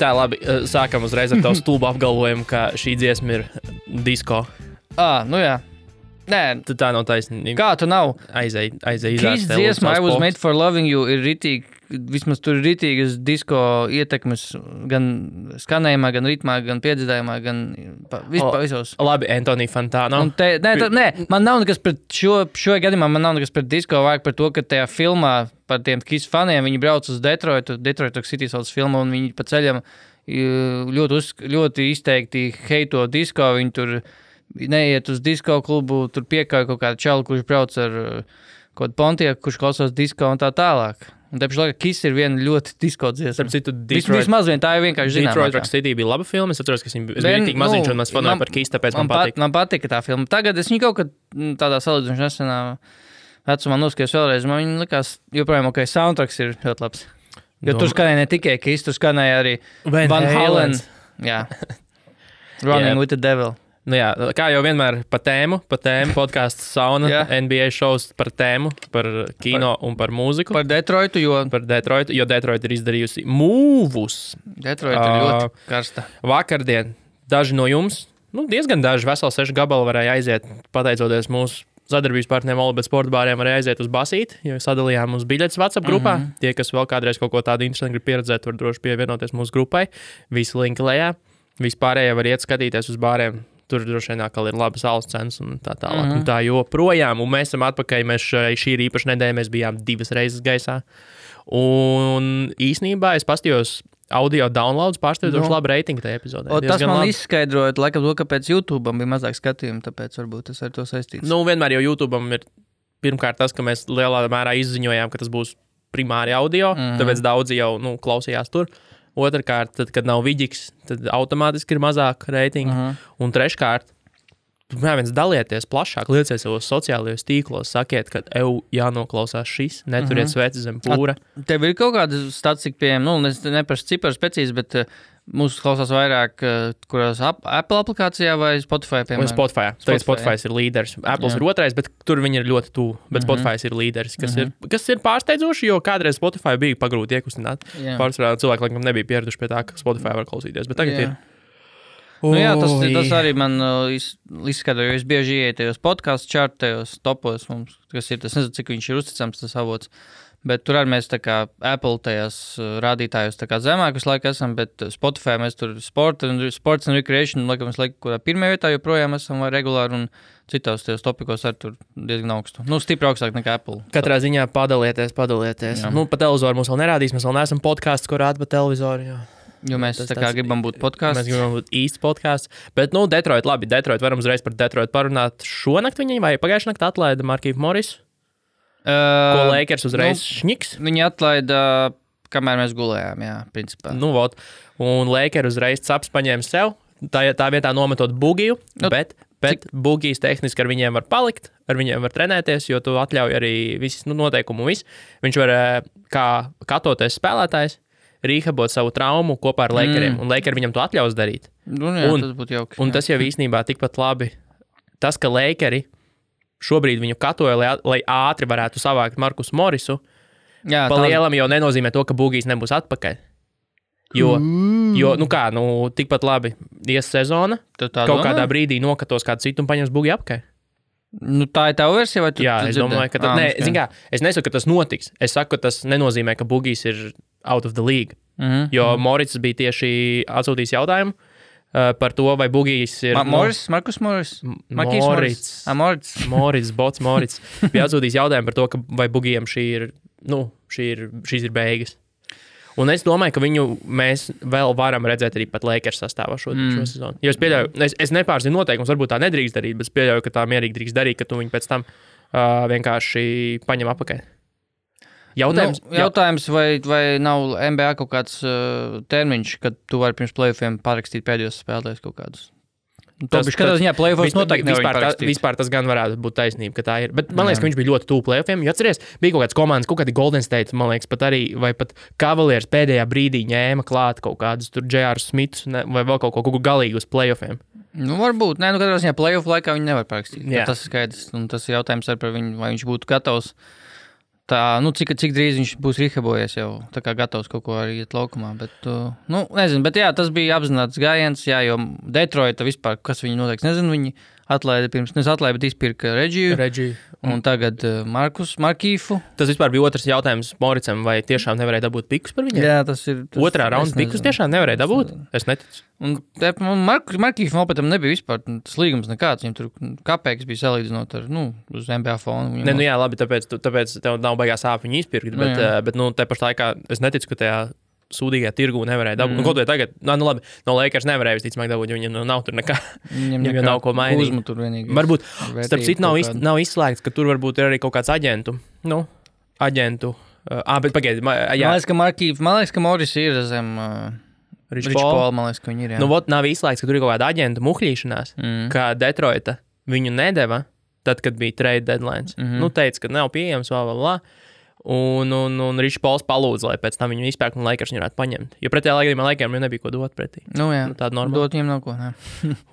Tā, labi, sākam uzreiz ar tavu stulbu apgalvojumu, ka šī dziesma ir disko. Nu jā. Nē, Tad tā nav taisnība. kā tu nav? Aizēj Kiss dziesma I Was Made For Loving You ir ritīgi, vismaz tur ir ritīgas disko ietekmes gan skanējumā, gan ritmā, gan piedzīdājumā, gan vispār visos. Labi, Antonija Fantano. Nē, man nav nekas pret šo gadījumā, man nav nekas pret disko, vajag par to, ka tajā filmā par tiem Kiss faniem, viņi brauc uz Detroit City sauc filmu, un viņi pa ceļam ļoti izteikti heito disko, viņi tur neiet uz disko klubu, tur piekāja kaut kādu čalu, kurš brauc ar kaut kādu Pontiaku, kurš klausās disko un tā tālāk. Un te pašlaik Kiss ir viena ļoti disko dziesma. Starp citu, Vismaz vien tā ir vienkārši zināmākā. Detroit Rock City bija laba filma, es atceros, ka viņa bija rītīgi maziņš, un mēs fanoju par Kiss, tāpēc man patika. Man patika tā filma. Tagad es viņu kaut kad tādā salīdzinoši nesenā vecumā noskatījos vēlreiz, man viņa likās joprojām, ok, soundtracks ir ļoti labs. Jo tur skanēja ne tikai Kiss, tur skanēja arī Van Halen. Jā. Running with the Devil. Nu jā, kā jau vienmēr pa tēmu podcasts sauna, NBA šovs par tēmu, par kino un par mūziku. Par Detroitu, jo Detroit ir izdarījusi mūvus. Detroit ir ļoti karsta. Vakardien daži no jums, diezgan daži, veseli 6 gabali varēja aiziet, pateicoties mūsu sadarbības partneriem Olibet sporta bāriem, varēja aiziet uz basīt, jo sadalījām uz biļetes WhatsApp grupā. Tie, kas vēl kādreiz kaut ko tādu interesantu grib pieredzēt, var droši pievienoties mūsu grupai. Visi linki lejā. Vispārējie var iet skatīties uz bāriem. Tur droši vien atkal ir labas alus cenas un tā tālāk. Un tā joprojām. Un mēs esam atpakaļ. Šī ir īpaša nedēļa. Mēs bijām 2 reizes gaisā. Un īsnībā es pastījos audio downloads pārsteidzoši labu reitingu tajā epizodē. Tas man izskaidroja, laikam to, kāpēc YouTube'am bija mazāk skatījumu, tāpēc varbūt tas ar to saistīts. Vienmēr jau YouTube'am ir pirmkārt tas, ka mēs lielā mērā izziņojām, ka tas būs primāri audio, tāpēc daudzi jau klausījās tur. Otrkārt, tad, kad nav vidīgs, tad automātiski ir mazāk reitingi. Un treškārt, dalieties plašāk, lieciet savos sociālajos tīklos, sakiet, ka jānoklausās šis, neturiet sveci zem pūra. Tev ir kaut kāda statistika pieejama, es neprašu ciparus precīzi, bet mūsu klausās vairāk, kurās Apple aplikācijā vai Spotify, piemēram? Spotify. Spotify ir līderis. Apples ir otrais, bet tur viņi ir ļoti tuvu. Bet Spotify ir līderis, kas ir pārsteidzoši, jo kādreiz Spotify bija pagrūti iekustināt. Pārsvarā cilvēki, laikam, nebija pieraduši pie tā, ka Spotify var klausīties, bet tagad ir. Tas arī man izskatā, jo es bieži ieeju tajos podcastu čartajos topos mums, kas ir, tas nezinu, cik viņš ir uzticams tas avots. Bet tur arī mēs tā kā Apple tajās rādītājos tā kā zemāk visu laiku esam, bet Spotify mēs tur sports and recreation, laikam mēs kurā pirmajā vietā joprojām esam vai regulāri un citos tajos topikos arī tur diezgan augstu. Stipri augstāk nekā Apple. Katrā ziņā padalieties. Pa televizoru mums vēl nerādīs, mēs vēl neesam podcasts, ko rāda pa televizoru, jo mēs tā kā gribam būt podcasts. Mēs gribam būt īsts podcasts. Bet, Detroit, labi, varam uzreiz par Detroit parunāt. Šonakt viņi vai pagājušā naktī atlaida Markīvu Morisu? Ko Lakers uzreiz šņiks? Viņi atlaida, kamēr mēs gulējām, principā. Un Lakers uzreiz caps paņēma sev, tā vietā nometot Bugiju, bet Bugijs tehniski ar viņiem var palikt, ar viņiem var trenēties, jo tu atļauj arī visus noteikumu un visu. Viņš var, kā katoties spēlētājs, rīhabot savu traumu kopā ar Lakeriem, un Lakeri viņam to atļaus darīt. Tas būtu jauki. Un tas jau īstenībā tikpat labi. Tas, ka Lakeri šobrīd viņu katoja, lai ātri varētu savākt Markus Morisu, pa lielam jau nenozīmē to, ka Bugijs nebūs atpakaļ. Jo tikpat labi ies sezona, kaut kādā brīdī nokatos kādu citu un paņems Bugiju apakaļ. Tā ir tava versija, vai tu es domāju, ka es nesaku, ka tas notiks. Es saku, ka tas nenozīmē, ka Bugijs ir out of the league. Jo Morits bija tieši atsūtījis jautājumu par to, vai Bugijs ir... Markus Moris? Morits. Bija atsūtījis jautājumu par to, ka vai Bugijam šīs ir beigas. Un es domāju, ka viņu mēs vēl varam redzēt arī pat Lakers sastāvā šo sezonu. Jo es pieļauju, es nepārzinu noteikums, varbūt tā nedrīkst darīt, bet es pieļauju, ka tā mierīgi drīkst darīt, ka tu viņu pēc tam vienkārši paņem apakaļ. Jautājums, vai nav NBA kaut kāds termiņš, kad tu vari pirms play-offiem parakstīt pēdējos spēlētājus kaut kādus? Katrā ziņā play-offos noteikti nevar parakstīt. Vispār tas gan varētu būt taisnība, ka tā ir. Bet man liekas, ka viņš bija ļoti tuvu play-offiem. Jo atceries, bija kaut kāds komandas, kaut kādi Golden State, man liekas, pat arī, vai pat Cavaliers pēdējā brīdī ņēma klāt kaut kādus tur J.R. Smiths vai vēl kaut ko galīgi uz play-offiem. Varbūt. Katrā ziņā play-off laikā viņi nevar parakstīt. Tas ir skaidrs. Un tas ir jautājums arī par viņu, vai viņš būtu gatavs cik drīz viņš būs rehabilitējies jau, tā kā gatavs kaut ko arī iet laukumā, bet, nezinu, bet jā, tas bija apzināts gājiens, jā, jo Detroita vispār, kas viņi noteikti, nezinu, viņi atlaida pirms, bet izpirka Regiju, un tagad Markīfu. Tas vispār bija otrs jautājums Moricam, vai tiešām nevarēja dabūt pikus par viņiem? Jā, tas ir. Otrā raunda pikus tiešām nevarēja dabūt? Es neticu. Un Markīfam opetam nebija vispār tas līgums nekāds, viņam tur kapēks bija salīdzinot ar, uz NBA fonu. Ne, jā, labi, tāpēc tev nav baigās sāp viņu izpirkt, bet te pašā laikā es neticu, ka tajā sūdīgajā tirgū nevarēja dabūt. Kaut vai tagad, labi, no Lakers nevarēja visticamāk dabūt, jo viņam nav tur nekā. Viņam nav ko mainīt. Varbūt, starp citu, nav izslēgts, ka tur varbūt ir arī kaut kāds aģentu. Bet pagaidi. Man liekas, ka Moris ir zem Rich Paul, man liekas, ka viņi ir, jā. Nav izslēgts, ka tur ir kaut kāda aģentu muhļīšanās, ka Detroita viņu nedeva, tad, kad bija trade deadlines. Teica, ka nav pieejams, Un Rich Pauls palūdza, lai pēc tam viņu izpērk un Lakers viņu varētu paņemt. Jo pretējā laikā Lakeriem jau nebija ko dot pretī. Jā, tāda normāla. Dot viņiem nav ko, nē.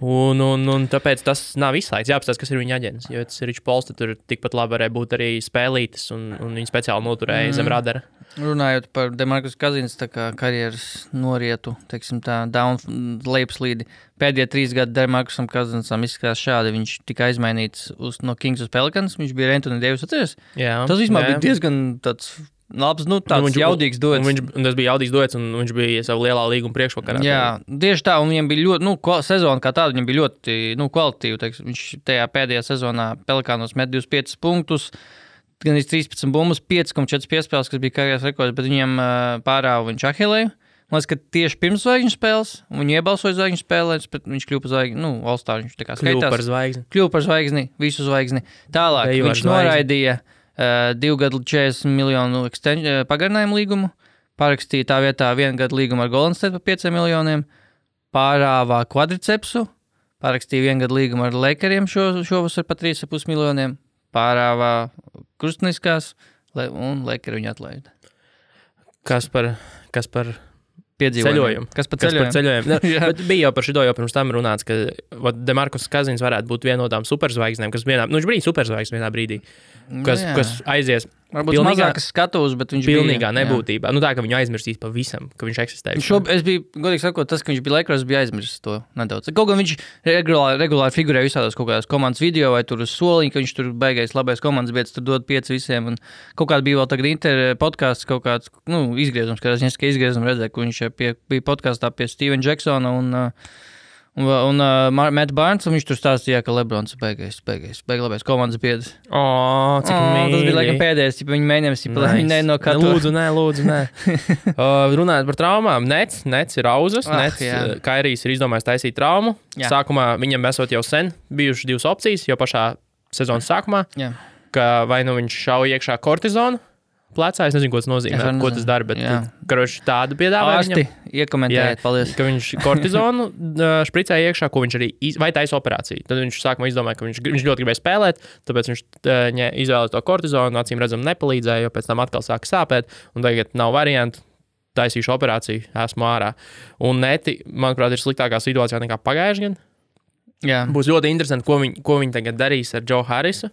un tāpēc tas nav izslēgts. Jāapstāsta, kas ir viņa aģents. Jo tas ir Rich Pauls, tad tur tikpat labi varēja būt arī spēlītis un viņi speciāli noturēja zem radara. Runājot par DeMarcus Cousins, tā kā karjeras norietu, teiksim tā, lejupslīdi. Pēdējie 3 gadi DeMarcusam Cousinsam izskatās šādi. Viņš tika aizmainīts no Kings uz Pelicans. Viņš bija Anthony Davis atceries. Tas vispār bija diezgan tāds labs, tāds jaudīgs duets. Un tas bija jaudīgs duets, un viņš bija savu lielā līguma priekšvakarā. Jā, tieši tā, un viņam bija ļoti, sezona kā tāda, viņam bija ļoti, kvalitīva. Teiksim, viņš tajā pēdējā sezonā Pelicanos met 25 punktus. Gan 13 bumbas, 5,4 piespēles, kas bija karjeras rekords, bet viņiem pārāva viņš Ahilēju. Man liekas, ka tieši pirms zvaigžņu spēles, un viņi iebalsoja zvaigžņu spēlēs, bet viņš kļuva par zvaigzni, All-Star, viņš tā kā skaitās. Kļuva par zvaigzni, visu zvaigzni. Tālāk viņš noraidīja 2 gadu 40 miljonu pagarinājumu līgumu, parakstīja tā vietā 1 gadu līgumu ar Golden State par 5 miljoniem, pārāvā kvadricepsu, parakstīja 1 gadu līgumu ar Lakeriem šovasar par 3,5 miljoniem, pārāvā krustniskās, un Lakeri viņu atlaida. Kas par ceļojumu? Kas par ceļojumu? Bet bija jau par šito jau pirms tam runāts, ka DeMarcus Cousins varētu būt viena no tām superzvaigznēm, kas viņš bija superzvaigznes vienā brīdī, kas aizies. Varbūt mazākas skatuves, bet viņš pilnīgā nebūtībā. Tā, ka viņu aizmirstīs pavisam, ka viņš eksistē. Es biju, godīgi sakot, tas, ka viņš bija Lakers, bija aizmirsis to nedaudz. Kaut gan viņš regulāri figurēja visādās kaut kādās komandas video vai tur uz soliņa, ka viņš tur beigais labais komandas vietas, tur dod 5 visiem. Un kaut kādā bija vēl tagad Inter podcasts, kaut kāds, izgriezums, kad es izgriezums redzēju, ka viņš bija podkastā pie Stevena Jacksona un Matt Barnes, un viņš tur stāstīja, ka Lebrons beigais labais komandas biedrs. Cik mīļi. Tas bija laikam pēdējais, ja viņi mēģinājums, lai viņi ne no katru. Lūdzu, nē. Runājot par traumām, Nets ir auzas, Kairijs ir izdomājis taisīt traumu. Jā. Sākumā viņam esot jau sen bijušas 2 opcijas, jau pašā sezonas sākumā, ka vai viņš šauja iekšā kortizonu plecā, es nezinu, ko tas nozīmē, ko tas dara, bet tādu piedāvāja viņam. Ārsti, iekomentējiet, paldies. Ka viņš kortizonu špricēja iekšā, ko viņš arī vai taisa operāciju. Tad viņš sākumā izdomāja, ka viņš ļoti gribēja spēlēt, tāpēc viņš izvēlēja to kortizonu, acīm redzam nepalīdzēja, jo pēc tam atkal sāka sāpēt, un tagad nav variantu, taisīšu operāciju, esmu ārā. Un Neti, manuprāt, ir sliktākā situācijā nekā pagājuši gan. Jā. Būs ļoti interesanti, ko viņi tagad darīs ar Joe Harrisu.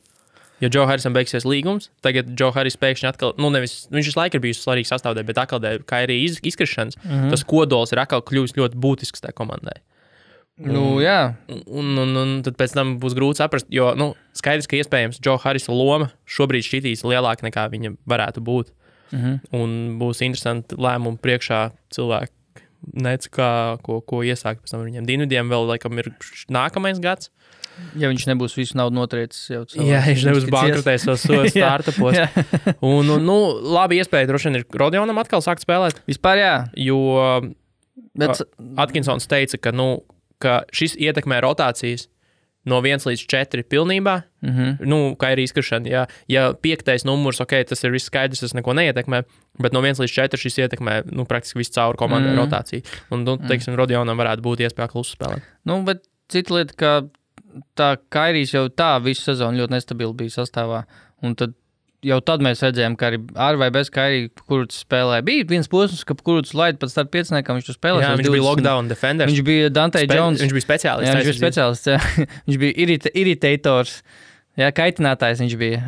Jo Joe Harrisam beigsies līgums, tagad Joe Harris pēkšņi atkal, viņš visu laiku ir bijis svarīgs sastāvdaļa, bet atkal dēļ Kairija izkrišanas, tas kodols ir atkal kļuvis ļoti būtisks tajā komandai. Jā. Un tad pēc tam būs grūti saprast, jo, skaidrs, ka iespējams Joe Harrisa loma šobrīd šķitīs lielāka nekā viņa varētu būt. Un būs interesanti lēmumi priekšā cilvēki, ko iesākt pēc tam viņiem. Dienvidiem vēl laikam ir nākamais gads. Ja viņš nebūs visu naudu notriecis jau cilvēks. Jā, viņš nebūs bankrotējis savos startupos. Un labi iespēja droši vien ir Rodionam atkal sākt spēlēt. Vispār jā. Jo Atkinsons teica, ka šis ietekmē rotācijas no 1 līdz 4 pilnībā. Kā ir izkrišana. Ja 5. numurs, tas ir viss skaidrs, tas neko neietekmē, bet no 1 līdz 4 šis ietekmē praktiski visu cauri komandai rotāciju. Un, teiksim, Rodionam varētu būt iespēja klusu spēlēt. Bet cita lieta, ka tā Kairijs jau tā visu sezonu ļoti nestabili bija sastāvā, un tad mēs redzējām, ka arī ar vai bez Kairija, kurus spēlēja, bija viens posms, ka kurus laid pat starp 5, viņš tur spēlēja. Jā, viņš bija lockdown defenders. Viņš bija Dante Jones. Viņš bija speciālists. Jā, viņš bija speciālists, jā. Viņš bija iritators. Jā, kaitinātājs viņš bija.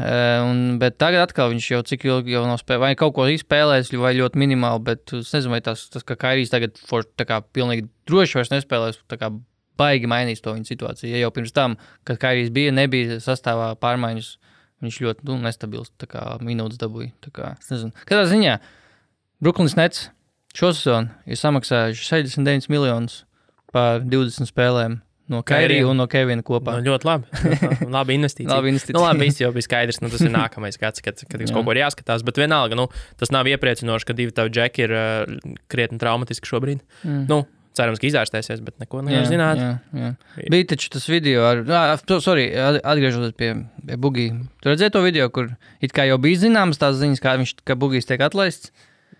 Bet tagad atkal viņš jau cik ilgi jau nav spēlējis, vai kaut ko izspēlējis, vai ļoti minimāli, bet es nezinu, vai tas ka Kairijs tagad tā kā pilnīgi droši vairs nespēlēs, tā kā baigi mainīs to viņa situāciju. Ja jau pirms tam, kad Kairijs nebija sastāvā pārmaiņas, viņš ļoti nestabils, tā kā minūtes dabūja. Tā kā, es nezinu. Kādā ziņā Brooklyns Nets šosezonu ir samaksājuši 69 miljonus par 20 spēlēm. No Kairija un no Kevina kopā. Ļoti labi. Labi investīcija. Labi, viss jau bija skaidrs. Tas ir nākamais gads, kad kaut ko ir jāskatās. Bet vienalga, tas nav iepriecinoši, ka divi tavi džeki ir krietni traumatiski šobrīd. Cerams, ka izārstēsies, bet neko nevar zināt. Jā. Bija taču tas video atgriežoties pie Bugī. Tu redzēji to video, kur it kā jau bija zināmas tās ziņas, ka Bugijs tiek atlaists?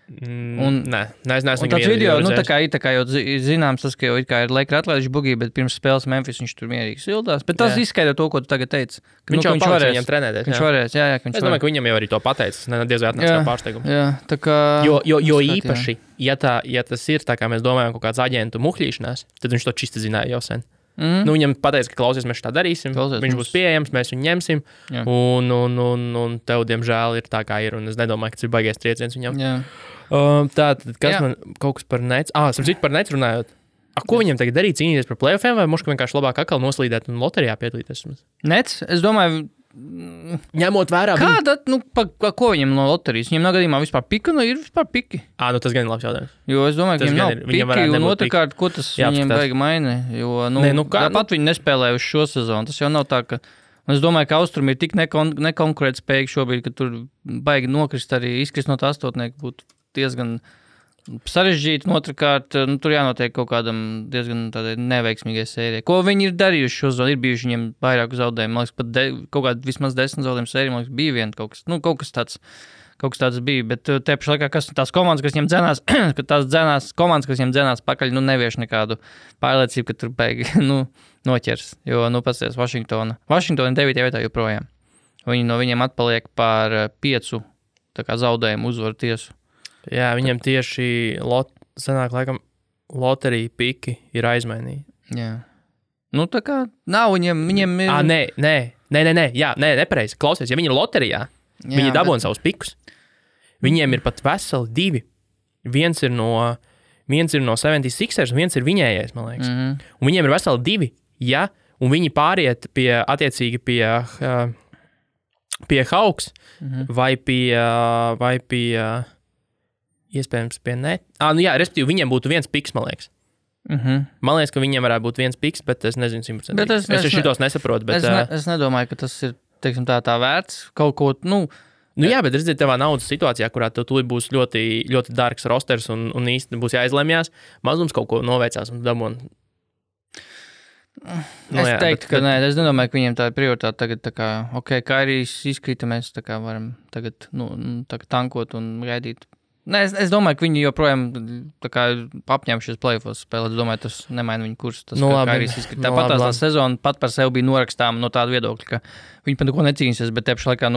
Nē, es neesmu tāds video, tā kā jau zināms, tas, ka jau ir Lakers atlaiduši Bugī, bet pirms spēles Memphis viņš tur mierīgi sildās. Bet tas izskaidro to, ko tu tagad teici. Viņš jau palīdz viņam trenēties. Viņš varēs, jā. Es domāju, ka viņam jau arī to pateicis. Diez vai atnāc kā pārsteigums. Jā, tā kā... Jo īpaši, ja tas ir tā, kā mēs domājam, kaut kāds aģentu muhļīšanās, tad viņš to čisti zināja jau sen. Viņam pateica, ka klausies, mēs tā darīsim. Viņš būs pieejams, mēs viņu ņemsim. Un tev, diemžēl, ir tā, kā ir. Un es nedomāju, ka tas ir baigais trieciens viņam. Tātad, kas man kaut kas par Nets? Sapratu par Nets runājot. Ko viņam tagad darīt? Cīnīties par playoffiem vai moška vienkārši labāk atkal noslīdēt un loterijā piedalīties? Nets, es domāju... Ņemot vērā... Kāda, ko viņam no loterijas? Viņam nav gadījumā vispār pika, ir vispār piki? Tas gan ir labs jautājums. Jo es domāju, ka viņam nav piki, un otrkārt, ko tas viņam baigi maina? Jo, pat viņi nespēlēja uz šo sezonu. Tas jau nav tā, ka... Es domāju, ka Austrum ir tik nekonkurētspējīgi šobrīd, ka tur baigi nokrist arī izkrist no tā astotnieka būtu diezgan sarežģīti. Otrakārt, tur jānotiek kaut kādam diezgan tādai neveiksmīgai sērijai. Ko viņi ir darījuši šo zonu? Ir bijuši viņiem vairāku zaudējumu. Man liekas, pat kaut kādā vismaz 10 zaudējumu sēriju, man liekas, bija viena kaut kas tāds bija. Bet te pašā laikā, tās komandas, kas viņiem dzenās, komandas, kas viņiem dzenās pakaļ, nevieš nekādu pārliecību, ka tur beigi, noķers. Jo, pasties, Vašingtona 9. vietā joprojām. Viņi no viņiem atpaliek par 5 zaudējumu uzvaru tiesu. Jā, viņiem tieši sanāk, laikam, loterija piki ir aizmainīti. Jā. Tā kā nav viņiem ir... Nē, nepareizi. Klausies, ja viņi ir loterijā, viņi dabūna savus pikus. Viņiem ir pat veseli 2. Viens ir no 76ers, un viens ir viņējais, man liekas. Un viņiem ir veseli 2, un viņi pāriet attiecīgi pie Hawks vai pie iespējams pie Net. Respektīvi, viņiem būtu viens piks, man liekas. Man liekas, ka viņiem varētu būt viens piks, bet es nezinu 100%. Es šitos nesaprotu, bet... Es nedomāju, ka tas ir, teiksim, tā vērts kaut ko, jā, bet redziet, tevā naudas situācijā, kurā tu būs ļoti, ļoti dārgs rosters un īsti būs jāizlemjās, mazums kaut ko noveicās un dabūn. Es teiktu, ka nē, es nedomāju, ka viņiem tā ir prioritāte tagad, tā kā, Kairijs izkrita, mēs tā kā varam tagad, tankot un gaidīt. Nē, es domāju, ka viņi joprojām tā kā apņēmušies play-offs spēlēt. Es domāju, tas nemaina viņu kursu. Tas, kā Kairijs izkrita. Tāpat tā sezona pat par sevi bija norakstām no tāda viedokļa, ka viņi par neko necīnīsies, bet te pašā laikā,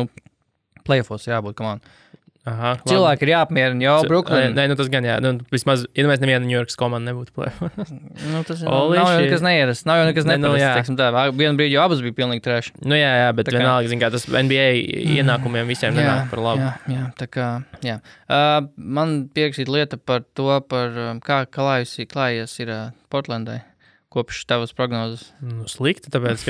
play-offs jābūt, come on. Cilvēki ir jāapmierina, jau Brooklyn. Nē, tas gan jā. Vismaz, ja mēs neviena New Yorkas komanda nebūtu play-offs. Tas nav jau nekas neierast. Nav jau nekas neparasts, teiksim tā. Vienu brīdi jau abas bija pilnīgi trash. Jā, bet vienalga, zin kā, tas NBA ienākumiem visiem nenāk par labu. Jā, tā kā, jā. Man pierakstīt lieta par to, kā klājies ir Portlandai. Kopš tavas prognozes? Slikti, tāpēc,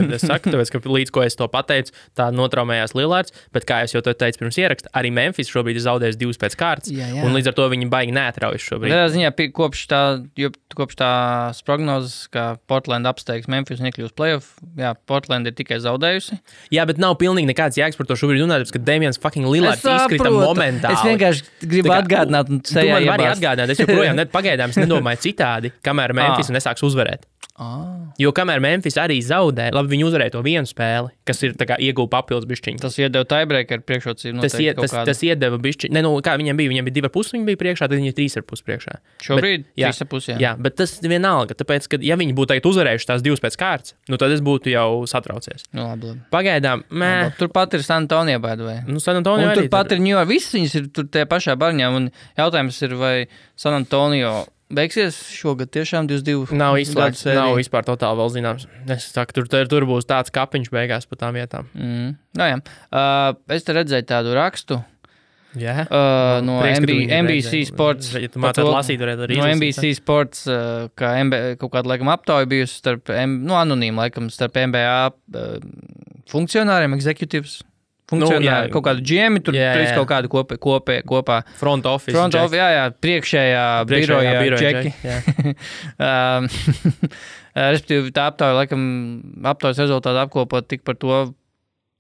ka līdz ko es to pateicu, tā notraumējās Lillards, bet kā es jau to teicu pirms ieraksta, arī Memphis šobrīd ir zaudējis 2 pēc kārtas, un līdz ar to viņi baigi neatraujas šobrīd. Tādā ziņā, kopš tās prognozes, ka Portland apsteigs Memphis un iekļūs playoff, Portland ir tikai zaudējusi. Jā, bet nav pilnīgi nekāds jēgas par to šobrīd runāt, ka Damians fucking Lillards izkrita momentāli. Es vienkārši gribu atgādināt un sejā iebāzt. Es joprojām pagaidām nedomāju citādi, kamēr Memphis nesāks uzvarēt. Jo kamēr Memphis arī zaudē, labi, viņi uzvarēja to vienu spēli, kas ir tā kā ieguva papildus bišķiņu. Tas iedeva tiebreaker priekšrocību noteikti kaut kādu. Tas iedeva bišķiņu. Kā viņiem bija 2,5, viņi bija priekšā, tad viņi ir 3,5 priekšā. Šobrīd 3,5, jā, bet tas vienalga, tāpēc, ka ja viņi būtu tagad uzvarējuši tās 2 pēc kārtas, tad es būtu jau satraucies. Labi. Pagaidām, Turpat ir San Antonio, by the way. San Antonio arī. Turpat ir New York, visas viņas ir tur tajā pašā barņā, un jautājums ir, vai San Antonio beigsies šogad tiešām 22. Nav izslēgts, nav vispār totāli vēl zināms. Es saku, tur būs tāds kapiņš beigās pa tām vietām. Es te redzēju tādu rakstu. Jā. No NBC Sports. Ja tu mācāt lasīt, varētu arī no NBC Sports, kā kaut kāda, laikam, aptauja bijusi starp, anonīma, laikam, starp NBA funkcionāriem, executives. Funkcionāri, kaut kādu džiemi, tur trīs kaut kādu kopā. Front office, priekšējā biroja džeki. Respektīvi, tā aptauja, laikam, aptaujas rezultātu apkopot tik par to,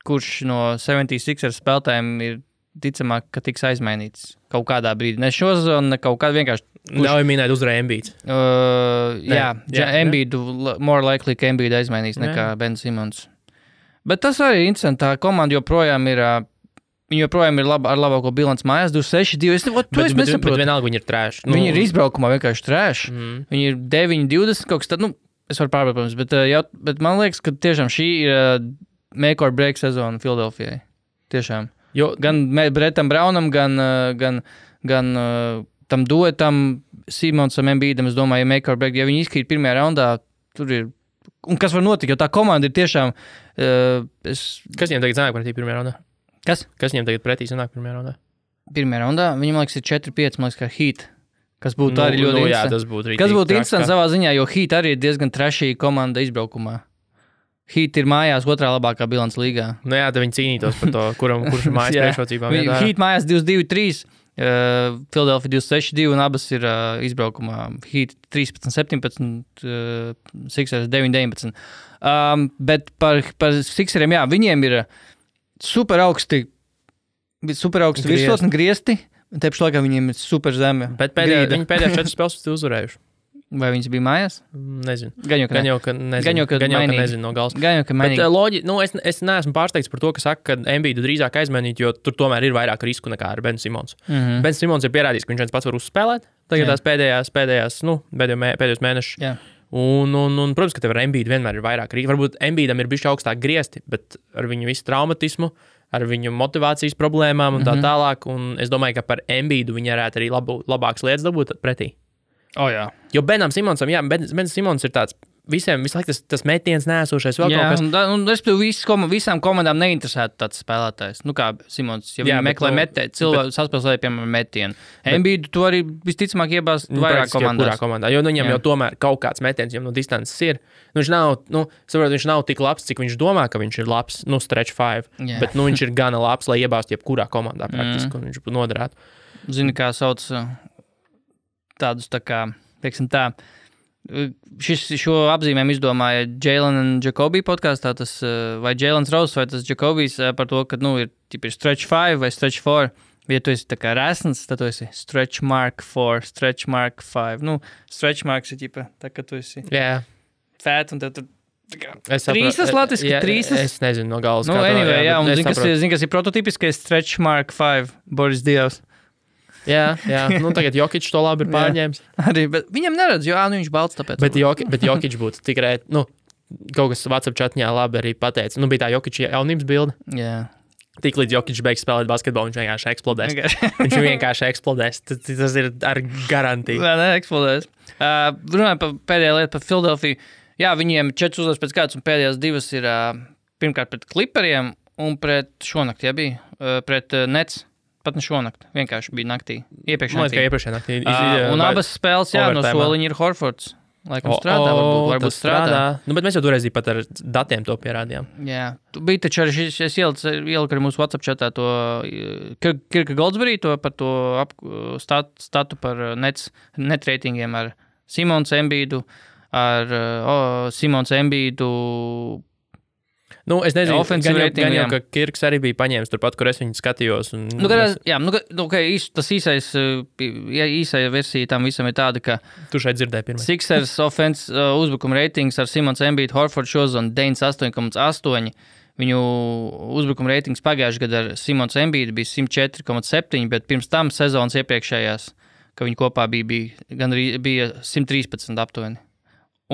kurš no 76ers spēlētājiem ir ticamāk, ka tiks aizmainīts kaut kādā brīdī. Ne šo sezonu, ne kaut kādā vienkārši. Ļauj minēt uzreiz Embiids. Embiidu, more likely, ka Embiidu aizmainīs nekā Ben Simmons. Bet tas arī ir interesanti. Tā komanda joprojām ir ar labāko bilanci mājās, 26-2. Bet vienalga viņi ir trash. Viņi ir izbraukumā vienkārši trash. Viņi ir 9-20 kaut kas tad, es varu pārbraukt, protams, bet man liekas, ka tiešām šī ir make or break sezona Philadelphijai. Tiešām. Jo, gan Brettam Brownam, gan tam duetam Simonsam Embiidam, es domāju, ja make or break, ja viņi izkrīt pirmajā raundā, tur ir. Un kas var notikt, jo tā komanda ir tiešām... Kas viņiem tagad sanāk pretī pirmajā raundā? Kas? Kas viņiem tagad pretī sanāk pirmajā raundā? Pirmajā raundā? Viņam, liekas, ir 4-5, man liekas, kā Heat. Kas būtu arī ļoti interesanti. Jā, tas būtu kas būtu interesanti savā ziņā, jo Heat arī ir diezgan trashī komanda izbraukumā. Heat ir mājās otrā labākā bilants līgā. Jā, tad viņi cīnītos par to, kurš ir mājas priekšrocībām. Heat mājās 22-3. Philadelphia 26-2 un abas ir izbraukumā. Heat 13-17, Sixers 9-19. Bet par Sixeriem, viņiem ir super augsti virsotni griesti, un te pašā laikā viņiem ir super zeme. Bet viņi pēdējās 4 spēles uzvarējuši. Vai viņas bija mājās? Nezinu. Gan jau, ka nezinu no gals. Gan jau, ka mainīgi. Bet es neesmu pārsteigts par to, ka saka, ka Embiidu drīzāk aizmainīt, jo tur tomēr ir vairāk risku nekā ar Ben Simons. Ben Simons ir pierādījis, ka viņš viens pats var uzspēlēt. Tagad tās pēdējos mēnešus. Jā. Un, protams, ka tev ar Embiidu vienmēr ir vairāk risku. Varbūt Embiidam ir bišķi augstāk griesti, bet ar viņu visu traumatismu, ar viņu motivācijas problēmām un tā tālāk. Un es domāju, ka par Embiidu viņi varētu arī labākas lietas dabūt pretī. Jā. Jo Benam Simonsam, Bens Simons ir tāds visu laiku tas metiens neesošais vēl kaut kas. Un respektīvi visām komandām neinteresētu tāds spēlētājs. Nu kā Simons, ja viņi meklē cilvēku saspēlēja, piemēram, metienu. Embiidu to arī visticamāk iebāzt vairāk komandās. Kurā komandā, jo viņam jau tomēr kaut kāds metiens jau no distances ir. Viņš nav tik labs, cik viņš domā, ka viņš ir labs, stretch 5, bet viņš ir gana labs, lai iebāzt jebkurā komandā praktiski, un viņš noderētu. Zini, kā sauc tādus tā kā, teiksim tā, šo apzīmēm izdomāja Jalen un Jacoby podkastā, vai Jalens Rose, vai tas Jacobijs par to, ka, ir stretch 5 vai stretch 4. Ja tu esi tā kā resns, tad tu esi stretch mark 4, stretch mark 5. Stretch marks ir tā, ka tu esi fat un tev tur trīsas latviski, trīsas. Es nezinu no galas. Anyway, un zini, kas ir prototipiskais stretch mark 5, Boris Dievs. Jā, tagad Jokic to labi ir pārņēmis. Arī, bet viņam neredz, jo viņš balts tāpēc. Bet Jokic būtu tikai, kaut kas WhatsApp chatņā labi arī pateica. Bija tā Jokic jaunības bilde. Jā. Tik līdz Jokic beigs spēlēt basketbolu, viņš vienkārši eksplodēs. Viņš vienkārši eksplodēs. Tas ir ar garantiju. Nē, eksplodēs. Runājot par pēdējā lietu par Philadelphia. Jā, viņiem 4 uzvaras pēc kārtas un pēdējās 2 ir pirmkārt pret Clipperiem un pret šonakt, pret Nets. Pat ne šonakt, vienkārši bija naktī. Iepriekšējā naktī. Un abas spēles, no soliņa ir Horfords. Laikam strādā, varbūt strādā. Bet mēs jau toreiz pat ar datiem to pierādījām. Jā, bija taču arī es ieliku arī mūsu WhatsApp chatā to Kirka Goldsberry, par to statu par net reitingiem ar Simons Embiidu, Es nezinu, gan jau, ka Kirks arī bija paņēmis turpat, kur es viņu skatījos. Tas īsai versija tam visam ir tāda, ka tu šeit dzirdēji pirmais. Sixers offense uzbrukuma ratings ar Simons Embiid, Horford šozonu 98,8. Viņu uzbrukuma ratings pagājušajā gadā ar Simons Embiid bija 104,7, bet pirms tam sezonas iepriekšējās, ka viņi kopā bija 113 aptuveni.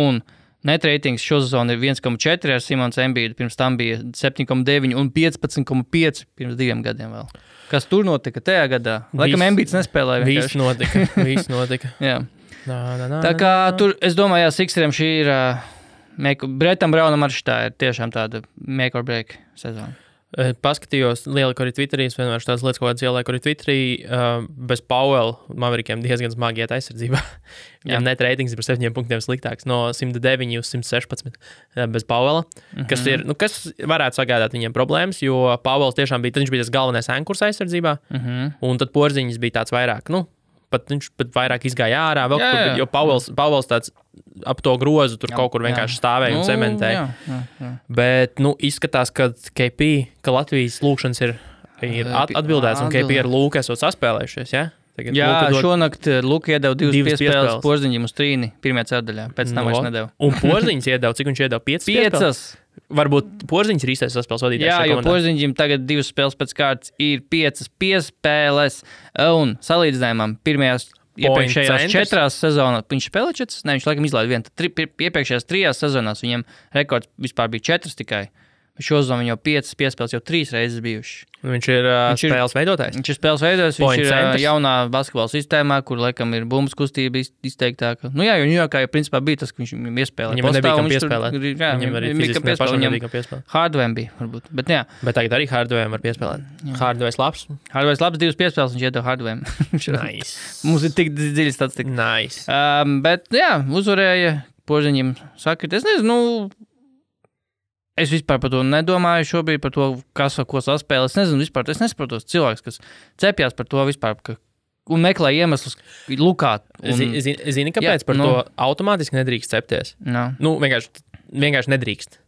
Un net ratings šo sezonu ir 1,4 ar Simons Embiidu, pirms tam bija 7,9 un 15,5 pirms 2 gadiem vēl. Kas tur notika tajā gadā? Laikam Embiids nespēlēja. Viss notika. Jā. Tā kā tur, es domāju, Sixeriem šī ir, Bretam Brownam arī šitā ir tiešām tāda make or break sezona. Paskatījos, lieliku arī Twitterī, es vienmēr tās lietas, ko ieliku arī Twitterī, bez Powell Maverikiem diezgan smagi iet aizsardzībā. Viņam net ratings ir par 7 punktiem sliktāks, no 109 uz 116 bez Powella, kas ir, kas varētu sagādāt viņiem problēmas, jo Powells tiešām bija, tad viņš bija tas galvenais ankurs aizsardzībā, un tad Porziņš bija tāds vairāk, viņš pat vairāk izgāja ārā, jo Powells tāds ap to grozu tur kaut kur vienkārši stāvēja un cementēja. Bet, izskatās, ka Latvijas lūkšanas ir atbildēts, un KP ar Lūku esot saspēlējušies, ja? Tagad šonakt Luka iedeva 2 piespēles Porziņam uz trīni pirmajā ceturdaļā, pēc tam vairs nedeva. Un Porziņš iedeva, cik viņš iedeva? 5 piespēles? Varbūt Porziņš ir īstais saspēles vadītājs. Jā, jo Porziņam tagad 2 spēles pēc kārtas ir 5 piespēles, un salīdzinājumam iepriekšējās 4 sezonās, viņš spēlē 4, viņš laikam izlaida 1, iepriekšējās 3 sezonās viņam rekords vispār bija 4 tikai. Šo sezonu viņam jau 5 piespēles jau 3 reizes bijuši. Viņš ir spēles veidotājs. Viņš ir spēles veidotājs, viņš ir jaunā basketbola sistēmā, kur laikam ir bumbas kustība izteiktāka. Jo Ņujorkā jau principā bija tas, ka viņš iespēlēja. Viņam nebija kam piespēlēt. Viņam arī fiziski pašam nebija kam piespēlēt. Hardware bija, varbūt. Bet tagad arī Hardware var piespēlēt. Hardware labs. Hardware labs, 2 piespēles viņš iedeva Hardware. Nice. Mums ir tik dziļi statistika. Nice. Bet uzvarēja Porziņam sakrit. Es nezinu, es vispār par to nedomāju šobrīd, par to, kas ar ko saspēlē. Es nezinu vispār, es nesaprotu tos cilvēks, kas cepjās par to vispār, un meklē iemeslus lukāt. Zini, kāpēc par to automātiski nedrīkst cepties? Vienkārši nedrīkst.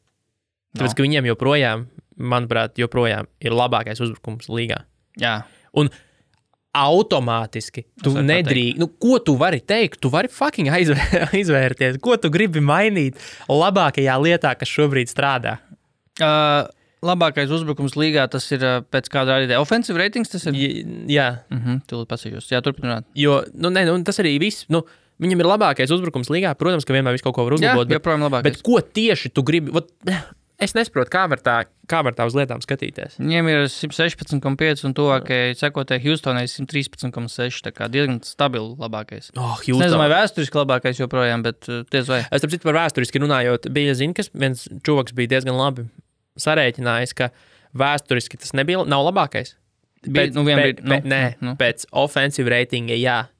Tāpēc, ka viņiem joprojām, manuprāt, ir labākais uzbrukums līgā. Jā. Un automātiski tu nedrīkst. Ko tu vari teikt? Tu vari fucking izvērties. Ko tu gribi mainīt labākajā lietā, kas šobrīd strādā? Labākais uzbrukums līgā, tas ir pēc kāda rādītāja. Offensive ratings tas ir? Jā. Tūlīt pasīšos. Jā, turpināt. Jo, tas arī viss, viņam ir labākais uzbrukums līgā. Protams, ka vienmēr visu kaut ko var uzlabot. Jā, joprojām labākais. Bet ko tieši tu gribi? Es nesaprotu, kā var tā uz lietām skatīties. Viņiem ir 116,5 un tuvākajai sekotai Houstonai 113,6. Tā kā diezgan stabili labākais. Es nezinu, vai vēsturiski labākais joprojām, bet diez vai. Es tāpēc par vēsturiski runājot, bija kas viens čuvaks bija diezgan labi sarēķinājis, ka vēsturiski tas nav labākais. Pēc offensive ratinga, jā.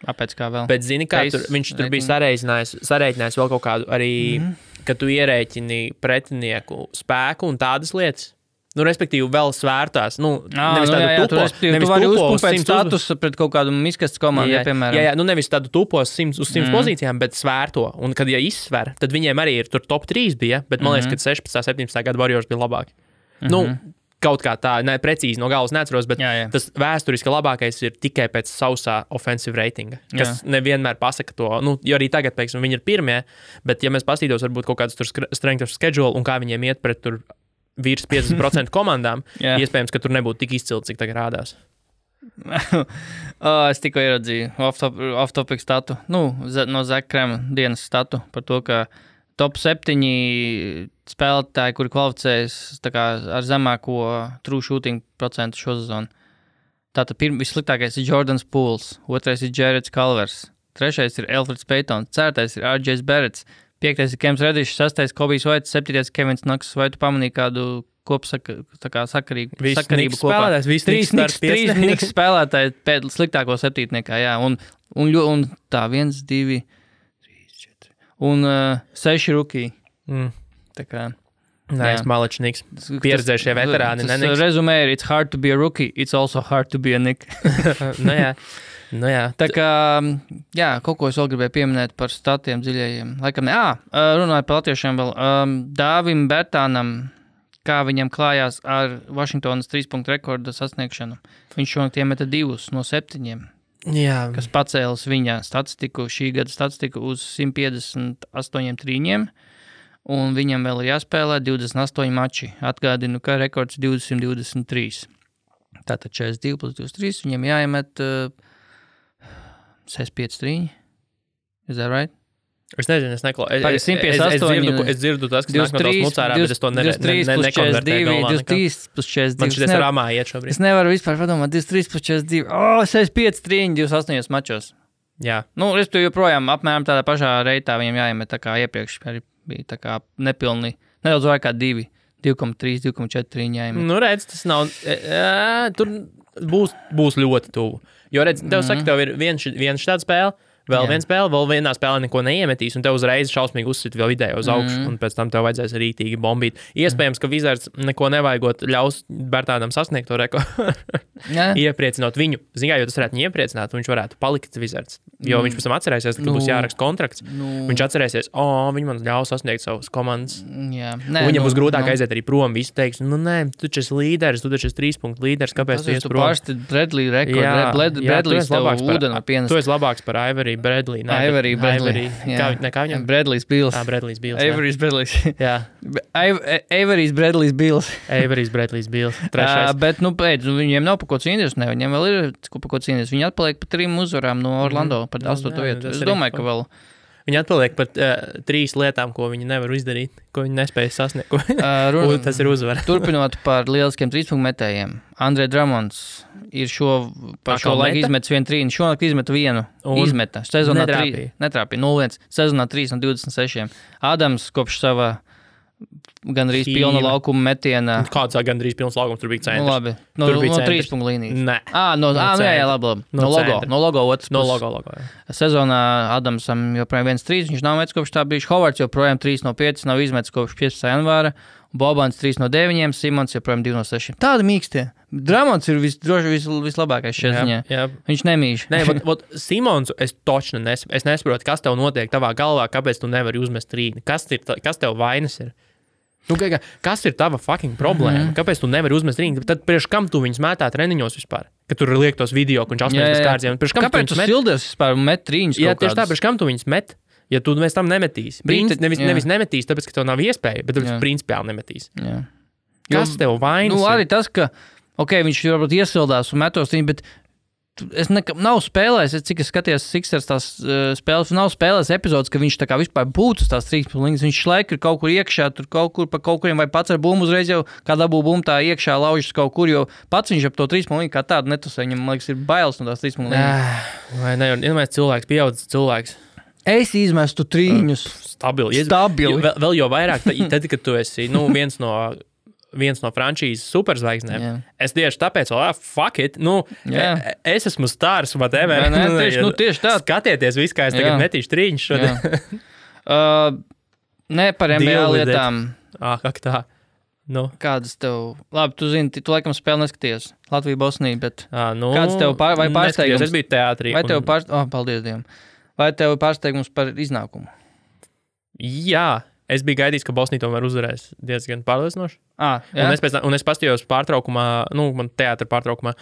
Pēc kā vēl? Bet zini, kā viņš tur bija sarēķinājis vēl kaut kādu arī, ka tu ierēķini pretinieku spēku un tādas lietas. Respektīvi, vēl svērtās. Nevis tādu tupos. Tu vari uzpumpēt statusu pret kaut kādu miskastes komandu, piemēram. Jā, nevis tādu tupos 100 uz 100 pozīcijām, bet svērto. Un, kad izsver, tad viņiem arī ir tur top 3 bija, bet man liekas, ka 16. 17. gada Warriors bija labāki. Kaut kā tā, precīzi no galvas neatceros, bet tas vēsturiski labākais ir tikai pēc sausā offensive ratinga, kas nevienmēr pasaka to. Jo arī tagad, piemēram, viņi ir pirmie, bet ja mēs paskatītos varbūt kaut kādas tur strength of schedule un kā viņiem iet pret tur virs 50% komandām, iespējams, ka tur nebūtu tik izcili, cik tagad rādās. Es tikko ieraudzīju off-topic statu, no Zach Krema dienas statu par to, ka top 7 spēlētāji, kuri kvalificējas ar zemāko true shooting procentu šo sezonu. Tātad vissliktākais ir Jordans Pools, otrais ir Jareds Culvers, trešais ir Elfrids Paytons, ceturtais ir RJs Barretts, piektais ir Kems Reddišs, sastais Kobijs Vaits, septītais Kevins Knox. Vai tu pamanīji kādu sakarību kopā? Trīs Knicks spēlētāji pēc sliktāko septītniekā, jā. Un tā 1, 2, 3, 4 un 6 rookie. Tā kā Nice, Malečniks. Pieredzējušie veterāni. Rezumē ir, it's hard to be a rookie, it's also hard to be a Nick. Jā. Tā kā, kaut ko es vēl gribēju pieminēt par statiem dziļajiem. Laikam, runāju par latviešiem vēl. Dāvim Bertānam, kā viņam klājās ar Vašingtonas 3-punktu rekorda sasniegšanu. Viņš šonakt iemeta 2 no 7. Jā. Kas pacēlas viņa statistiku, šī gada statistiku uz 158 trīņiem. Un viņam vēl ir jāspēlē 28 mači. Atgādinu, ka rekords 223. Tātad 42 plus 23. Viņam jāiemet 65 trīņi. Is that right? Es nezinu, es neklausu. Es dzirdu tas, kas nāk no tās mucārā, bet es to nekonvertēju. 23 plus 42. Man šitais rāmā iet šobrīd. Es nevaru vispār padomāt. 23 plus 42. 65 trīņi 28 mačos. Jā. Nu, es tu joprojām apmēram tādā pašā reitā viņam jāiemet tā kā iepriekš. Arī bija tā kā nepilni, nedaudz vairāk kā 2, 2,3, 2,4 jāiemet. Nu, redz, tas nav, tur būs ļoti tuvu. Jo, redz, tev saka, tev ir viens šāda spēle, vēl viena spēle, vēl vienā spēlē neko neiemetīs, un tev uzreiz šausmīgi uzsit vēl vidēji uz augšu, un pēc tam tev vajadzēs rītīgi bombīt. Iespējams, ka Wizards neko nevajagot ļaus Bertānam sasniegt to rekordu. Iepriecinot viņu. Zin kā, jo tas varētu viņu iepriecināt, un viņš varētu palikt Wizards. Jo viņš pēc tam atcerēsies, ka būs jāraksta kontrakts. Viņš atcerēsies, viņi man ļaus sasniegt savus komandas. Viņam būs grūtāk aiziet arī prom. Visi teiks, nē, tu taču esi līderis, tu taču esi 3 punktu līderis, kāpēc tu ies prom? Tas ir Bradley rekords. Bradley's tev ūdeni pienest. Tu esi labāks par Avery Bradley. Avery Bradley. Kā viņam? Bradley's Bills. Bradley's Bills. Avery's Bradley's. Jā. Avery's Bradley's Bills. Avery's Bradley's Bills. Trešais. Bet, pēc, viņiem nav pa ko cīnīties, ne? Viņiem vēl ir pa ko cīnīties. Viņi atpaliek pa 3 uzvarām no Orlando, par 8. vietu. Es domāju, ka vēl... Viņi atpaliek par 3 lietām, ko viņi nevar izdarīt, ko viņi nespēja sasniegt. Tas ir uzvara. Turpinot par lieliskiem 3-punktu metējiem. Andre Drummonds ir šo laiku izmetis 1 trīni. Šonakt izmeta 1. Izmeta. Sezonā 3. Netrāpīja. 0-1. Sezonā 3 no 26. Adams kopš sava gandrīz pilna laukuma metiena. Kāds gandrīz pilns laukums, tur bija centrs. Nu, labi. No 3 punktu līnijas. Nē. Labi. No logo otrs. No logo, jā. Sezonā Adamsam joprojām 1-3, viņš nav metis kopš tā brīža. Hovards joprojām 3 no 5, nav izmetis kopš 15. janvāra. Bobans 3 no 9, Simons joprojām 2 no 6. Tādi mīkstie. Dramons ir vislabākais šajā ziņā. Jā. Viņš nemīž. Nē, Simonsu es točnu es nesaprotu, kas tev notiek tavā galvā, kāpēc tu nevari uzmest trīni. Kas tev vainas ir? Nu, kas ir tava fucking problēma? Kāpēc tu nevari uzmest trīni? Tad priekš kam tu viņus mētā treniņos vispār? Kad tur liek tos video, ka viņš 18 kārtiem. Kāpēc tu sildies vispār un met trīņus? Jā, tieši tā, priekš kam tu viņus met? Ja tu mēs tam nemetīsi. Nevis nemetīs, tāpēc, ka tev nav iespēja, bet tāpēc principiāli nemetīs. Jā. Kas tev vainas? Nu, arī tas, ka, viņš varbūt iesildās un metos trīni, bet nav spēlējis, cik es skatījos Sixers tās spēles, nav spēlējis epizodes, ka viņš tā kā vispār būtu uz tās 3 punktus. Viņš laika ir kaut kur iekšā, tur kaut kuriem vai pats ar bumbu uzreiz jau, kā dabū bumbu tā iekšā laužas kaut kur, jo pats viņš ap to 3 punktu kā tādu netusē. Viņam, man liekas, ir bailes no tās 3 punktu. Vai ne, iedomājies cilvēks, pieaudzis cilvēks. Es izmestu trīņus. Stabili. Vēl jau vairāk, tad, kad tu esi, viens no frančīzes superzvaigznēm. Es tieši tāpēc, fuck it, es esmu stars, whatever. Tieši tā. Skatieties visu, kā es tagad metīšu trīņus šodien. Ne par NBA lietām. Kā tā? Kādas tev... Labi, tu zini, tu laikam spēli neskaties. Latvija, Bosnija, bet... Kādas tev vai pārsteigums? Es biju teātrī. Paldies Dievam. Vai tev pārsteigums par iznākumu? Jā. Es biju gaidījis, ka Bosnija tomēr uzvarēs diezgan pārliecinoši. Un es pastījos pārtraukumā, man teātra pārtraukumā,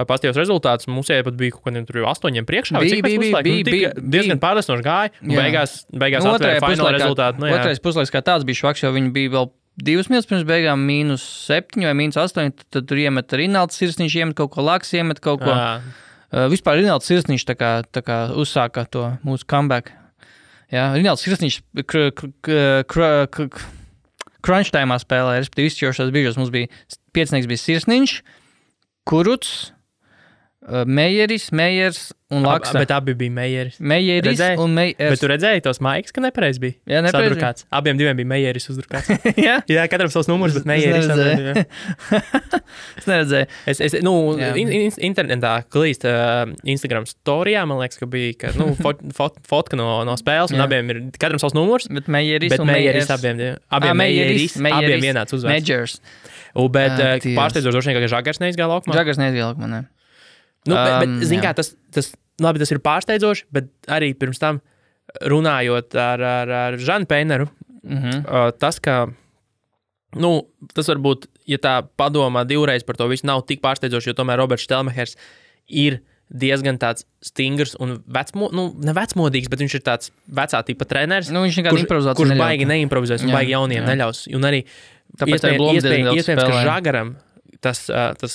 pastījos rezultātus. Mums pat bija kaut kādiem tur 8 priekšā. Bija diezgan pārliecinoši gāja. Beigās atvēra fināla rezultātu. Otrais puslaiks kā tāds bija švaks, jo viņi bija vēl 2 minūtes pirms beigām -7 vai -8. Tad tur iemet Rinalds Sirsniņš, iemet kaut ko Laks, iemet kaut ko. Vispār Rinalds Sirsniņš tā kā uzsāka to mūsu comeback. Jā, Rinalds Sirsniņš crunch time'ā spēlē, respektīvi izšķirošās brīžos mums bija 5. bija Sirsniņš, Kurucs, Mejers un Laksa. Bet abi bija Mejeris. Mejeris un Mejers. Bet tu redzēji tos maikus, ka nepareiz bija? Jā, nepareiz bija. Abiem diviem bija Mejeris uzdrukāts. Jā, katram savs numurs, bet Mejeris. Es neredzēju. Internetā klīst Instagram storijā, man liekas, ka bija fotka no spēles, un abiem ir katram savs numurs. Bet Mejeris un Mejers. Abiem vienāds uzvārds. Mejers. Bet pārsteidzoši droši vien, ka Žagars neizgāja laukumā. Žagars neizgāja laukumā, ne. Bet zin kā, tas ir pārsteidzoši, bet arī pirms tam runājot ar Žanu Peineru, tas, ka, tas varbūt, ja tā padomā divreiz par to visu, nav tik pārsteidzoši, jo tomēr Roberts Štelmehers ir diezgan tāds stingrs un ne vecmodīgs, bet viņš ir tāds vecā tipa treneris, kurš baigi neimprovizēs un baigi jauniem neļaus. Un arī iespējams, ka Žagaram tas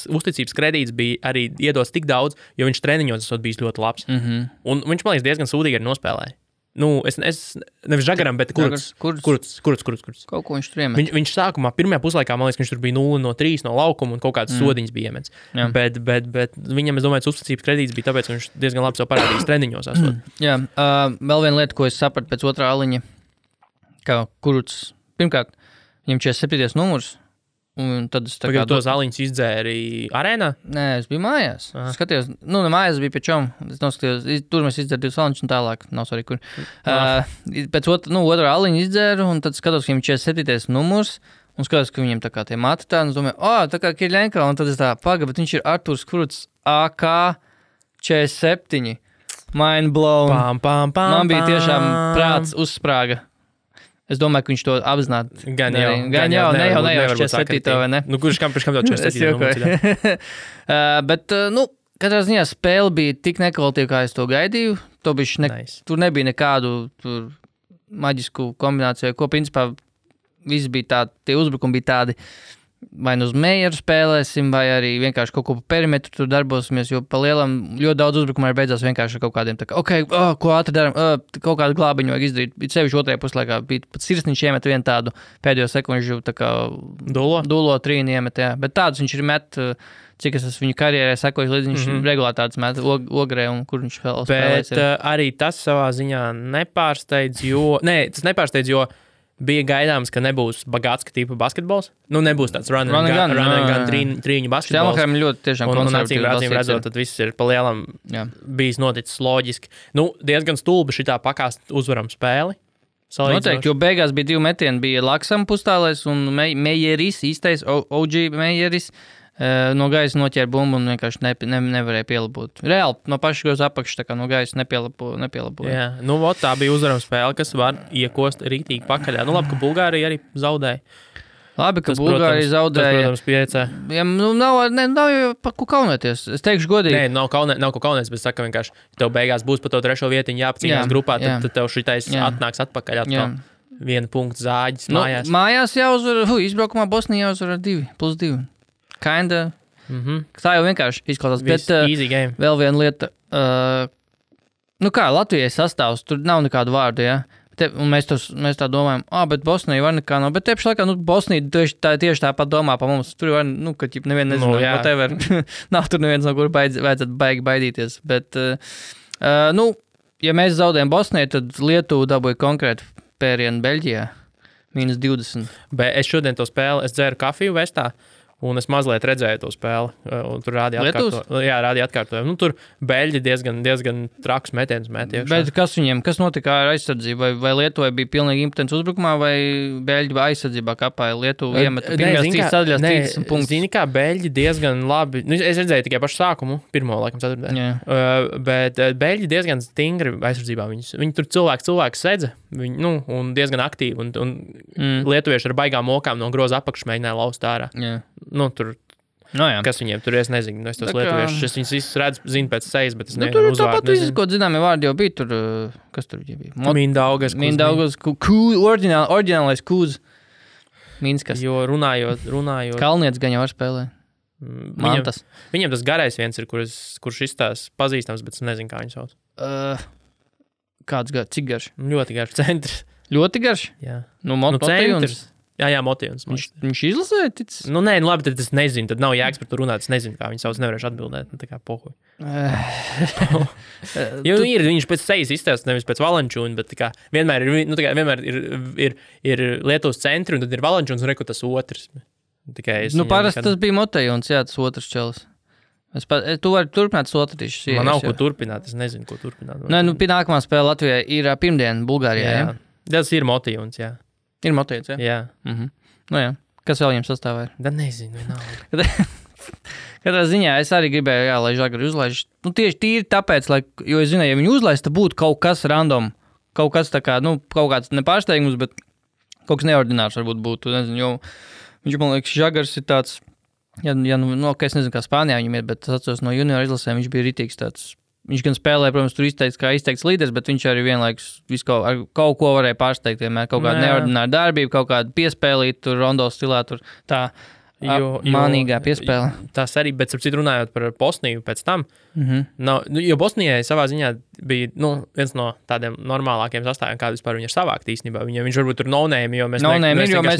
uzticības kredīts bija arī iedots tik daudz, jo viņš treniņos esot bijis ļoti labs. Un viņš, man liekas, diezgan sūdīgi arī nospēlēja. es nevis Žagaram, bet Kurts. Kaut ko viņš tur iemet. Viņš sākumā, pirmajā puslaikā, man liekas, viņš tur bija 0-3 no laukuma un kaut kāds sodiņas bija iemets. Bet viņam, es domāju, uzticības kredīts bija tāpēc, ka viņš diezgan labi sev parādījis treniņos. Jā, vēl viena lieta, ko es sapratu pēc otrā aliņa, ka Kurts, pirmkārt, viņam 47. numurs, un tad es tā kā... tos aliņus izdzēri arēnā? Nē, es biju mājās. Skatījos, mājās bija pie čom. Es noskatījos, tur mēs izdzēru 2 aliņus un tālāk. Nav svarīgi, kur. Pēc otrā aliņa izdzēru, un tad skatos, ka viņam 47. numurs, un skatos, ka viņam tā kā tie mati tā, un es domāju, tā kā Kirļenko, un tad es tā bet viņš ir Arturs Kurts AK 47. Mind blown. Man bija tiešām prāts uzsprāga. Es domāju, ka viņš to apzināti. Gan jau, ne jau 47. vai ne? Kurš kam tev 47. Bet, katrā ziņā spēle bija tik nekvalitīva, kā es to gaidīju. Tur nebija nekādu maģisku kombināciju, ko principā visi bija tādi, tie uzbrukumi bija tādi, vai uz Meijeru spēlēsim, vai arī vienkārši kaut ko pa perimetru tur darbosimies, jo pa lielam ļoti daudz uzbrukumā ir beidzās vienkārši ar kaut kādiem, ko ātri daram, kaut kādu glābiņu vajag izdarīt. Sevišķi otrajā puslaikā bija pat Sirsniņš iemet vienu tādu pēdējo sekundžu, tā kā dulo trīni iemet, jā. Bet tādus viņš ir met, cik es esmu viņu karjerē sekoju, līdz viņš regulāri tādus met Ogrē un kur viņš vēl spēlēs. Bet arī tas savā ziņā nepārsteidz, jo bija gaidāms, ka nebūs bagātska tipa basketbols. Nebūs tāds run and gun trīņu basketbols. Štelmacham ļoti tiešām konservatīvi acīm redzot, tad viss ir pa lielam bijis noticis loģiski. Diezgan stulbi šitā pakāst uzvaram spēli. Noteikti, jo beigās bija 2 metieni, bija Laksam pustālais un Meijeris, īstais OG Meijeris. No gaisa noķēra bumbu un vienkārši nevarēja pielabot. Reāli, no paša goza apakšas, tā kā no gaisa nepielaboja. Jā, tā bija uzvarama spēle, kas var iekost rītīgi pakaļā. Labi, ka Bulgārija arī zaudēja. Labi, ka Bulgārija zaudēja. Tas, protams, piecē. Ja, nav jau pa ko kaunēties. Es teikšu godīgi. Nē, nav ko kaunēties, bet saka vienkārši, tev beigās būs pa to 3. vietiņu jāapcīnās grupā, tad tev šitais atnāks atpakaļ atkal. 1 punktu zāģis mājās. Mājās jāuzvar, izbraukumā Bosnija jāuzvar 2+2. Kinda. Tā jau vienkārši izklausās. Bet vēl viena lieta. Latvijai sastāvs, tur nav nekādu vārdu, ja? Un mēs tā domājam, bet Bosnija var nekā nav. Bet tieši laikā, Bosnija tieši tāpat domā pa mums. Tur var, ka nevienu nezinu, whatever. Nav tur neviens, no kur vajadzētu baidīties. Bet, ja mēs zaudējam Bosniju, tad Lietuva dabūja konkrēti pērienu Beļģijā. -20. Bet es šodien to spēli, es dzēru kafiju Vestā. Un es mazliet redzēju to spēli, un tur rādīja atkārtojumu. Tur Beļģi diezgan traks metiens met iekšā. Bet kas notika ar aizsardzību? Vai Lietuvai bija pilnīgi impotents uzbrukumā, vai Beļģi aizsardzībā kapāja? Lietuva iemet pirmajās 3 sadaļās 30 punktus. Zini, kā Beļģi diezgan labi, es redzēju tikai pašu sākumu, pirmo, laikam, 4. Bet Beļģi diezgan stingri aizsardzībā. Viņi tur cilvēku sedza, un diezgan aktīvi, un lietuvieši ar baigām mokām no groza apakšas mēģināja laust ārā. Tur, kas viņiem tur, es nezinu, es tos lietuviešus, es viņus visus zinu pēc sejas, bet es nevienu uzvārdu nezinu. Tāpat visu, ko zināmi vārdi jau bija tur, kas tur bija? Mindaugas, oriģinālais Kūz. Minskas. Jo runājot. Kalnietis gan jau var spēlē. Mantas. Viņam tas garais viens ir, kurš izstās pazīstams, bet es nezinu, kā viņu sauc. Kāds garš? Cik garš? Ļoti garš centrs. Ļoti garš? Jā. Centrs. Jā, Motīvs. Viņš izlasēja ticis? Labi, tad es nezinu, tad nav jēgas par to runāt, es nezinu, kā viņi sauc, nevarēšu atbildēt, tā kā pohuj. Jo viņš pēc sejas izstāst, nevis pēc Valančūna, bet tā kā vienmēr ir Lietuvas centri, un tad ir Valančūns, un reku tas otrs. Parasti tas bija Motejons, jā, tas otrs čelis. Tu vari turpināt sotrīšus. Man nav ko turpināt, es nezinu, ko turpināt. Nākamā spēle Latvijai ir pirmdien Bulgārijā, jā? Tas ir Motejons, jā. Ir Motejons, jā? Jā. Jā. Kas vēl viņam sastāvā ir? Da nezinu, nav. Katrā ziņā es arī gribēju, lai Žagari uzlaiž. Tieši tīri tāpēc, jo es zināju, ja viņi uzlaiž, tad būtu kaut kas random. Kaut kas tā kā, kaut kāds nepārsteigums, bet kaut kas neordinārs varbūt būtu. Nezinu, jo viņš, man liekas, Žagars ir tāds, es nezinu, kā Spānijā viņam ir, bet es atceros no juniora izlasēm, viņš bija ritīgs tāds. Viņš gan spēlēja, protams, tur izteikts līderis, bet viņš arī vienlaikus ar kaut ko varēja pārsteigt. Vienmēr kaut kāda neordināra darbība, kaut kāda piespēlīta, tur rondo stilā, tur tā. Mānīgā piespēle. Tas arī, bet ap citu runājot par Bosniju pēc tam, jo Bosnijai savā ziņā bija viens no tādiem normālākiem sastāviem, kādu vispār viņi ir savākt īstenībā. Viņš varbūt tur no-name, jo mēs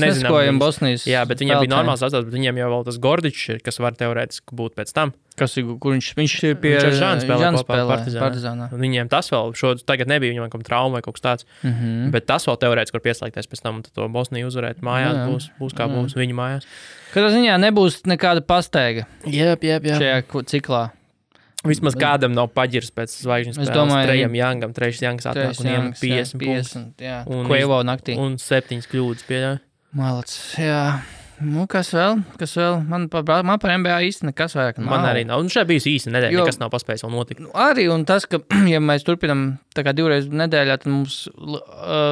neskojam Bosnijas. Jā, bet viņiem bija normāls sastāvs, bet viņiem jau vēl tas Gordičs ir, kas var teorētiski būt pēc tam. Kur viņš ir pie Žāns spēlē Partizānā. Viņiem tas vēl, tagad nebija viņam kaut trauma vai kaut kas tāds, bet tas vēl teorētiski var pieslēgties pēc tam, un tad to Bosniju uzvarēt mājās, būs kā būs viņu mājās. Katrā ziņā nebūs nekāda pasteiga šajā ciklā. Vismaz kādam nav paģirs pēc zvaigžņu spēles. Trejs Jangs atnāk un iem 50 Kvevo naktī. Un 7 kļūdas pieļauj. Malac, jā. Kas vēl? Man par NBA īsti nekas vairāk nav. Man arī nav. Un šeit bijis īsi nedēļa, nekas nav paspējis vēl notikt. Arī, un tas, ka, ja mēs turpinam tā kā 2 reizes nedēļā, tad mums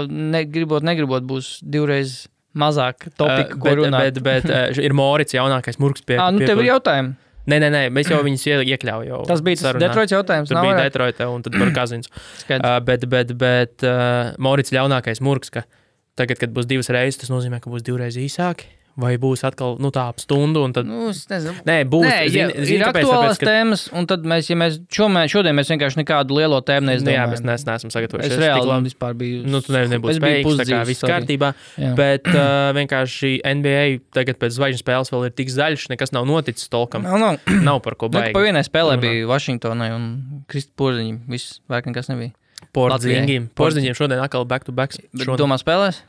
negribot būs 2 reizes mazāk topika, ko runāt. Bet ir Morits jaunākais murgs pie. Tev ir jautājumi? Nē, mēs jau viņus iekļauju jau. Tas bija tas Detroits jautājums. Tur bija Detroita un tad par Kazins. Bet Morits jaunākais murgs, ka tagad, kad būs 2 reizes, tas nozīmē, ka būs 2 reizes īsāki. Vai būs atkal tā ap stundu, un tad... Es nezinu. Nē, būs. Ir aktuālās tēmas, un tad šodien mēs vienkārši nekādu lielo tēmu neizdomājam. Jā, mēs neesam sagatavojuši. Es reāli vispār biju... Tu nebūs spējīgs, tā kā viss kārtībā. Bet vienkārši NBA tagad pēc zvaigžņu spēles vēl ir tik zaļš, nekas nav noticis tolkam. Nav par ko baigi. Pa vienai spēlē bija Vašingtonai un Kristi Porziņi. Viss, vairāk nekas nebija. Porziņiem šodien atkal back-to-backs. Bet domā spēlēs?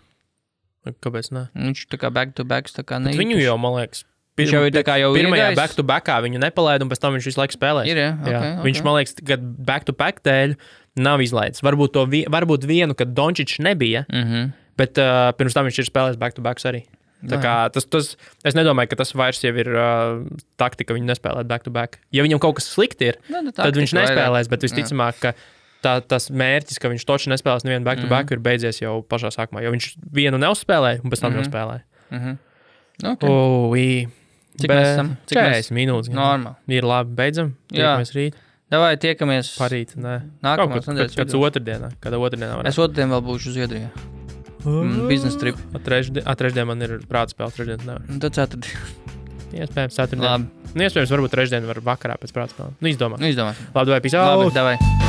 Kāpēc ne? Viņš tā kā back-to-backs, tā kā neīpaši. Viņu jau, man liekas, pirmajā back-to-backā viņu nepalaida, un pēc tam viņš visu laiku spēlēs. Ir, jā. Viņš, man liekas, kad back-to-back dēļ nav izlaidis. Varbūt vienu, kad Dončičs nebija, bet pirms tam viņš ir spēlējis back-to-backs arī. Tā kā es nedomāju, ka tas vairs jau ir taktika, viņu nespēlēt back-to-back. Ja viņam kaut kas slikti ir, tad viņš nespēlēs, bet visticamāk, ka tas mērķis, ka viņš toči nespēlēs nevienu back-to-back, ir beidzies jau pašā sākumā, jo viņš vienu neuzspēlēja un pēc tam jau spēlēja. Cik mēs esam? 40 minūtes. Normāli. Ir labi, beidzam. Tiekamies rīt. Davai, tiekamies. Parīt, nē. Nākamās nedēļas. Kāds otrdienā. Kādā otrdienā varētu. Es otrdien vēl būšu Zviedrijā. Business trip. Trešdien man ir prātspēle, trešdien nevar. Tad ceturtdien. Iespējams, ceturtdien. Labi. Iespējams, varbūt trešdien var vakarā pēc prātspēle. Izdomā. Labi, Labi, davai, peace out. Labi, davai.